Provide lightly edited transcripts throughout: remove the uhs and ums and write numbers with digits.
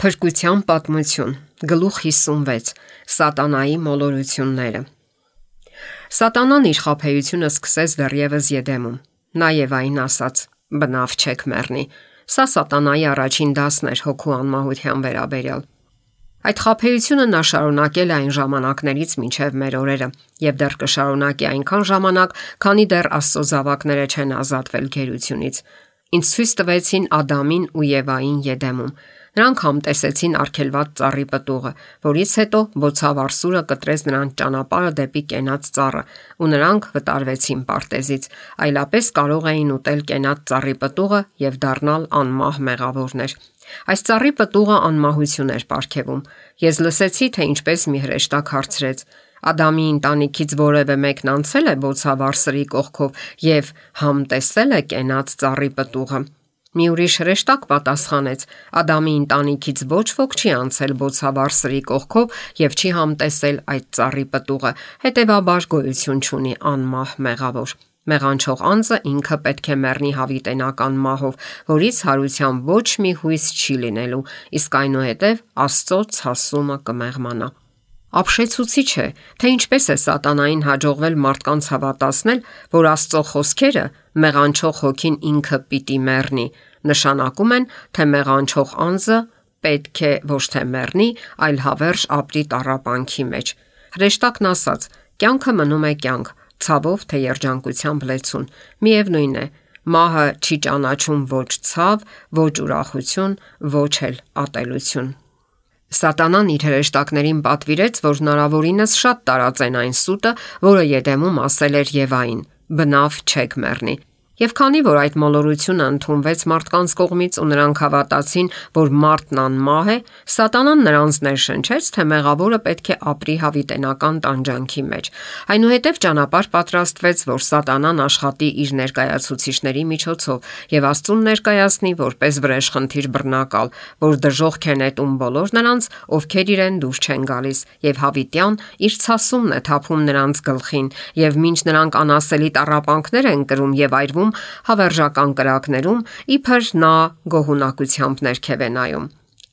Փրկության պատմություն, գլուխ 56, Սատանայի մոլորությունները։ Սատանան իր խաբեությունը սկսեց դեռևս Եդեմում։ Նա Եվային ասաց. «Բնավ չեք մեռնի»։ Սա Սատանայի առաջին դասն էր հոգու անմահության վերաբերյալ։ Այդ խաբեությունը նա շարունակել է այն ժամանակներից մինչև մեր օրերը եւ դեռ կշարունակի այնքան ժամանակ, քանի դեռ Աստծո զավակները չեն ազատվել գերությունից։ Ինձ ցույց տվեցին Ադամին ու Եվային Եդեմում։ Նրանք համտեսեցին արգելված ծառի պտուղը, որից հետո բոցավառ սուրը կտրեց նրանց ճանապարհը դեպի կենաց ծառը, ու նրանք վտարվեցին պարտեզից, այլապես կարող էին ուտել կենաց ծառի պտուղը եւ դառնալ անմահ մեղավորներ։ Այս ծառի պտուղը անմահություն էր պարգևում։ Ես լսեցի, թե ինչպես մի հրեշտակ հարցրեց. Ադամի ընտանիքից որևէ մեկն անցել է բոցավառ սրի կողքով եւ համտեսել է կենաց ծառի պտուղը։ Մի ուրիշ հրեշտակ պատասխանեց. Ադամի ընտանիքից ոչ ոք չի անցել բոցավառ սրի կողքով եւ չի համտեսել այդ ծառի պտուղը, հետեւաբար գոյություն չունի անմահ մեղավոր։ Մեղանչող անձը ինքը պետք է մեռնի հավիտենական մահով, որից հարության ոչ մի հույս չի լինելու, իսկ այնուհետև Աստծո ցասումը կմեղմանա։ Ապշեցուցիչ է, թե ինչպես է սատանային հաջողվել մարդկանց հավատացնել, որ Աստծո խոսքերը մեղանչող հոգին ինքը պիտի մեռնի, նշանակում են, թե մեղանչող անձը պետք է ոչ թե մեռնի, այլ հավերժ ապրի տառապանքի մեջ։ Հրեշտակն ասաց. կյանքը մնում է կյանք, ցավով թե երջանկությամբ լեցուն։ Միևնույն է, մահը չի ճանաչում ոչ ցավ, ոչ ուրախություն, ոչ էլ ատելություն։ Սատանան իր հրեշտակներին պատվիրեց, որ հնարավորինս շատ տարածեն այն սուտը, որը Եդեմում ասել էր Եվային. բնավ չեք մեռնի։ Եվ քանի որ այդ մոլորությունը ընդունվեց մարդկանց կողմից ու նրանք հավատացին, որ մարդն անմահ է, Սատանան նրանց ներշնչեց, թե մեղավորը պետք է ապրի հավիտենական տանջանքի մեջ։ Այնուհետև ճանապարհ պատրաստվեց, որ Սատանան աշխատի իր ներկայացուցիչների միջոցով եւ Աստծուն ներկայացնի որպես վրեժխնդիր բռնակալ, որ դժոխք է նետում բոլոր նրանց, ովքեր իրեն դուր չեն գալիս, եւ հավիտյան իր ցասումն է թափում նրանց գլխին, եւ մինչ նրանք անասելի տառապանքներ են կրում եւ այրվում հավերժական կրակներում, իբր նա գոհունակությամբ ներքև է նայում։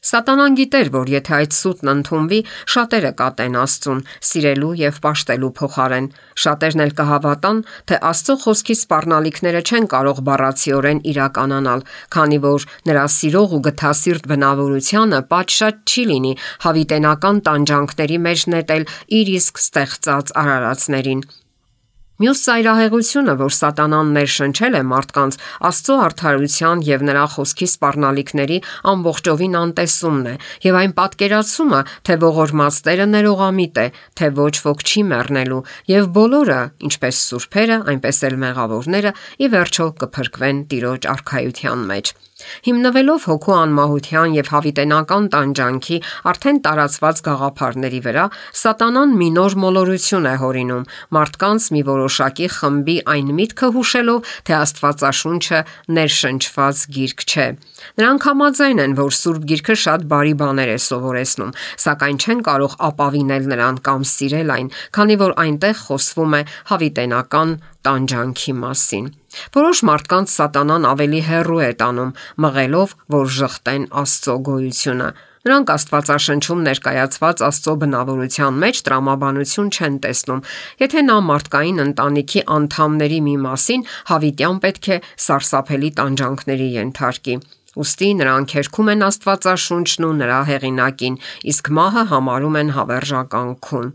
Սատանան գիտեր, որ եթե այդ սուտն ընդունվի, շատերը կատեն Աստծուն, սիրելու եւ պաշտելու փոխարեն։ Շատերն էլ կհավատան, թե Աստծո խոսքի սպառնալիքները չեն կարող բառացիորեն իրականանալ, քանի որ նրա սիրող ու գթասիրտ բնավորությանը պատշաճ չի լինի հավիտենական տանջանքների մեջ նետել իր իսկ ստեղծած արարածներին։ Մյուս ծայրահեղությունը, որ Սատանան ներշնչել է մարդկանց, Աստծո արդարության եւ նրա խոսքի սպառնալիքների ամբողջովին անտեսումն է, եւ այն պատկերացումը, թե ողորմածները ներողամիտ է, թե ոչ ոք չի մեռնելու, եւ բոլորը, ինչպես սուրբերը, այնպես էլ մեղավորները, ի վերջո կփրկվեն Տիրոջ արքայության մեջ։ Հիմնվելով հոգու անմահության եւ հավիտենական տանջանքի արդեն տարածված գաղափարների վրա, Սատանան մի նոր մոլորություն է հորինում մարդկանց մի որոշակի խմբի այն միտքը հուշելով, թե Աստվածաշունչը ներշնչված գիրք չէ։ Նրանք համաձայն են, որ Սուրբ Գիրքը շատ բարի բաներ է սովորեցնում, սակայն չեն կարող ապավինել նրան կամ սիրել այն, քանի որ այնտեղ խոսվում է հավիտենական տանջանքի մասին։ Որոշ մարդկանց Սատանան ավելի հեռու է տանում, մղելով, որ ժխտեն Աստծո գոյությունը։ Նրանք Աստվածաշնչում ներկայացված Աստծո բնավորության մեջ տրամաբանություն չեն տեսնում։ Եթե նա մարդկային ընտանիքի անդամների մի մասին հավիտյան պետք է սարսափելի տանջանքների ենթարկի։ Ուստի նրանք հերքում են Աստվածաշունչն ու նրա հեղինակին, իսկ մահը համարում են հավերժական քուն։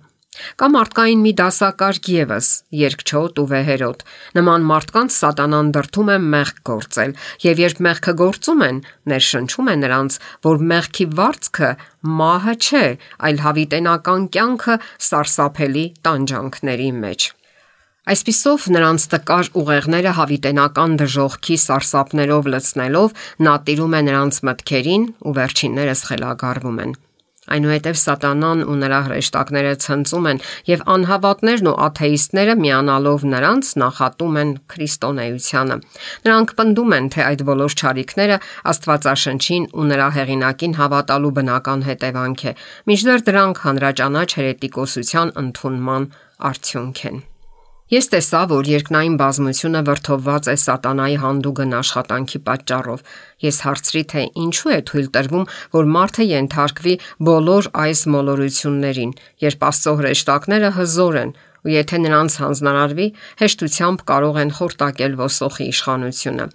Կա մարդկային մի դասակարգ ևս՝ երկչոտ ու վեհերոտ։ Նման մարդկանց Սատանան դրդում է մեղք գործել, եւ երբ մեղքը գործում են, ներշնչում է նրանց, որ մեղքի վարձքը մահը չէ, այլ հավիտենական կյանքը սարսափելի տանջանքների մեջ։ Այսպիսով նրանց տկար ուղեղները հավիտենական դժոխքի սարսափներով լցնելով նա տիրում է նրանց մտքերին ու վերջիններս խելագարվում են։ Այնուհետև Սատանան ու նրա հրեշտակները ցնծում են եւ անհավատներն ու աթեիստները միանալով նրանց նախատում են քրիստոնեությանը։ Նրանք պնդում են, թե այդ բոլոր չարիքները Աստվածաշնչին ու նրա հեղինակին հավատալու բնական հետևանք է, մինչդեռ դրանք հանրաճանաչ հերետիկոսության ընդունման արդյունք են։ Ես տեսա, որ երկնային բազմությունը վրդովված է սատանայի հանդուգն աշխատանքի պատճառով։ Ես հարցրի, թե ինչու է թույլ տրվում, որ մարդը ենթարկվի բոլոր այս մոլորություններին, երբ Աստծո հրեշտակները հզոր են, ու եթե նրանց հանձնարարվի, հեշտությամբ կարող են խորտակել ոսոխի իշխանությունը։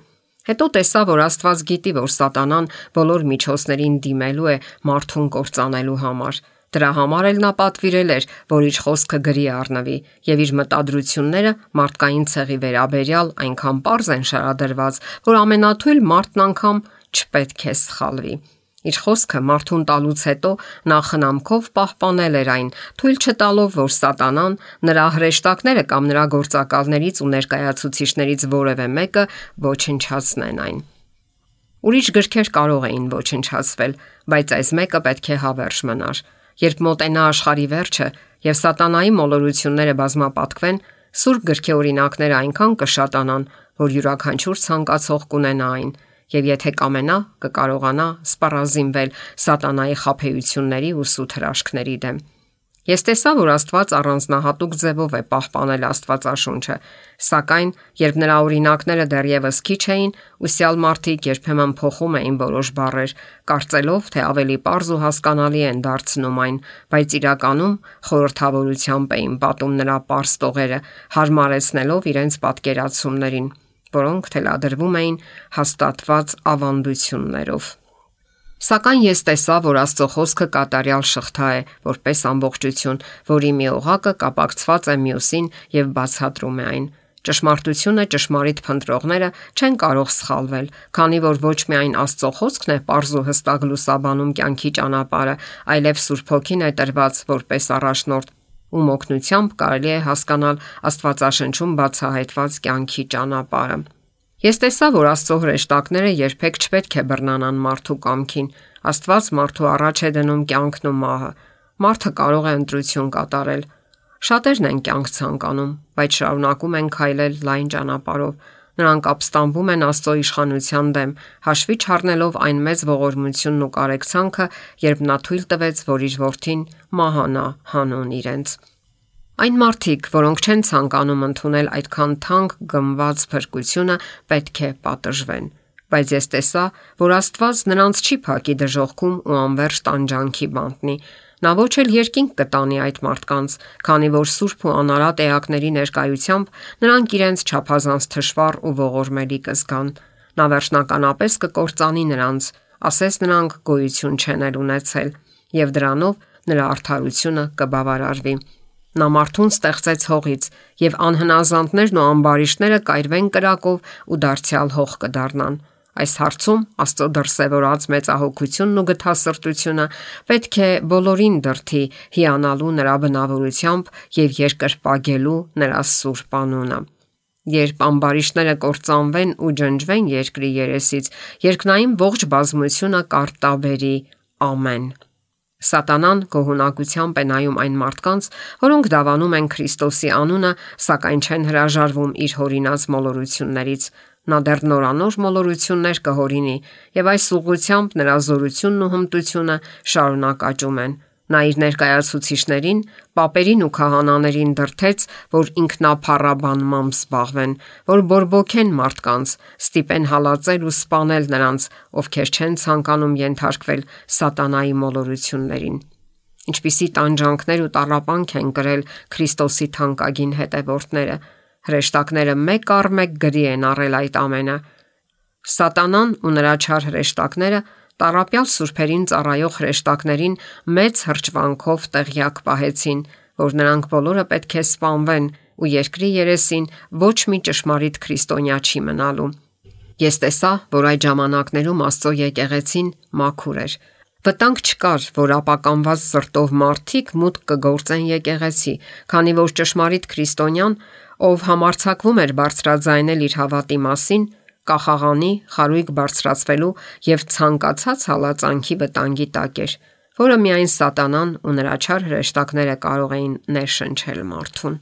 Հետո տեսա, որ Աստված գիտի, որ սատանան բոլոր միջոցներին դիմելու է մարդուն կործանելու համար։ Դրա համար էլ նա պատվիրել էր, որ իր խոսքը գրի առնվի, եւ իր մտադրությունները մարդկային ցեղի վերաբերյալ այնքան պարզ են շարադրված, որ ամենաթույլ մարդն անգամ չպետք է սխալվի։ Իր խոսքը մարդուն տալուց հետո նա խնամքով պահպանել էր այն, թույլ չտալով, որ սատանան, նրա հրեշտակները կամ նրա գործակալներից ու ներկայացուցիչներից որևէ մեկը ոչնչացնեն այն։ Ուրիշ գրքեր կարող էին ոչնչացվել, բայց այս մեկը պետք է հավերժ մնար։ Երբ մոտենա աշխարհի վերջը եւ սատանայի մոլորությունները բազմապատկվեն, Սուրբ գրքի օրինակները այնքան կշատանան, որ յուրաքանչյուր ցանկացող կունենա այն, եւ եթե կամենա, կկարողանա սպառազինվել սատանայի խաբեությունների ու սուտ հրաշքների դեմ։ Ես տեսա, որ Աստված առանձնահատուկ ձևով է պահպանել Աստվածաշունչը, սակայն երբ նրա օրինակները դեռևս քիչ էին, ուսյալ մարդիկ երբեմն փոխում էին որոշ բառեր, կարծելով, թե ավելի պարզ ու հասկանալի են դարձնում այն, բայց իրականում խորհրդավորությամբ էին պատում նրա պարզ տողերը, հարմարեցնելով իրենց պատկերացումներին, որոնք թելադրվում էին հաստատված ավանդություններով։ Սակայն ես տեսա, որ Աստծո խոսքը կատարյալ շղթա է, որպես ամբողջություն, որի մի օղակը կապակցված է մյուսին եւ բացատրում է այն։ Ճշմարտությունը ճշմարիտ փնտրողները չեն կարող սխալվել, քանի որ ոչ միայն Աստծո խոսքն է պարզ ու հստակ լուսաբանում կյանքի ճանապարհը, այլև Սուրբ Հոգին է տրված որպես առաջնորդ, ում օգնությամբ կարելի է հասկանալ Աստվածաշնչում բացահայտված կյանքի ճանապարհը։ Ես տեսա, որ Աստծո հրեշտակները երբեք չպետք է բռնանան մարդու կամքին։ Աստված մարդու առաջ է դնում կյանքն ու մահը։ Մարդը կարող է ընտրություն կատարել։ Շատերն են կյանք ցանկանում, բայց շարունակում են քայլել լայն ճանապարհով։ Նրանք ապստամբում են Աստծո իշխանության դեմ, հաշվի չառնելով այն մեծ ողորմությունն ու կարեկցանքը, երբ նա թույլ տվեց, որ իր որդին մահանա հանուն իրենց։ Այն մարդիկ, որոնք չեն ցանկանում ընդունել այդքան թանկ գնված փրկությունը, պետք է պատժվեն։ Բայց ես տեսա, որ Աստված նրանց չի փակի դժոխքում ու անverջ տանջանքի բանտնի։ Նա ոչ էլ երկինք կտանի այդ մարդկանց, քանի որ սուրբ ու անարատ էակների ներկայությամբ նրանք իրենց չափազանց թշվառ ու ողորմելի կզգան։ Նա վերջնականապես կկործանի նրանց, ասես նրանք գոյություն չեն ունեցել, եւ դրանով նրա արդարությունը կբավարարվի։ Նա մարդուն ստեղծեց հողից, եւ անհնազանդներն ու ամբարիշտները կայրվեն կրակով ու դարձյալ հող կդառնան։ Այս հարցում Աստծո դրսևորած մեծահոգությունն ու գթասրտությունը պետք է բոլորին դրթի հիանալու նրա բնավորությամբ եւ երկրպագելու նրա սուրբ անունը։ Երբ ամբարիշտները կործանվեն ու ջնջվեն երկրի երեսից, երկնային ողջ բազմությունը կարտաբերի ամեն։ Սատանան գոհունակությամբ է նայում այն մարդկանց, որոնք դավանում են Քրիստոսի անունը, սակայն չեն հրաժարվում իր հորինած մոլորություններից։ Նա դեռ նորանոր մոլորություններ կհորինի, եւ այս ուղղությամբ նրա զորությունն ու հմտությունը շարունակ աճում են։ Նա իր ներկայացուցիչներին, պապերին ու քահանաներին դրթեց, որ ինքնափառաբանմամբ զբաղվեն, որ բորբոքեն մարդկանց, ստիպեն հալածել ու սպանել նրանց, ովքեր չեն ցանկանում ենթարկվել սատանայի մոլորություններին։ Ինչպիսի տանջանքներ ու տառապանք են կրել Քրիստոսի թանկագին հետևորդները։ Հրեշտակները մեկ առ մեկ գրի են առել այդ ամենը։ Սատանան ու նրա չար հրեշտակները տառապյալ սուրբերին ծառայող հրեշտակներին մեծ հրճվանքով տեղյակ պահեցին, որ նրանք բոլորը պետք է սպանվեն ու երկրի երեսին ոչ մի ճշմարիտ քրիստոնյա չի մնալու։ Ես տեսա, որ այդ ժամանակներում Աստծո եկեղեցին մաքուր էր։ Վտանգ չկար, որ ապականված սրտով մարդիկ մուտք կգործեն եկեղեցի, քանի որ ճշմարիտ քրիստոնյան, ով համարձակվում էր բարձրաձայնել իր հավատի մասին, կախաղանի, խարույկ բարձրացվելու եւ ցանկացած հալածանքի վտանգի տակ էր, որը միայն սատանան ու նրա չար հրեշտակները կարող էին ներշնչել մարդուն։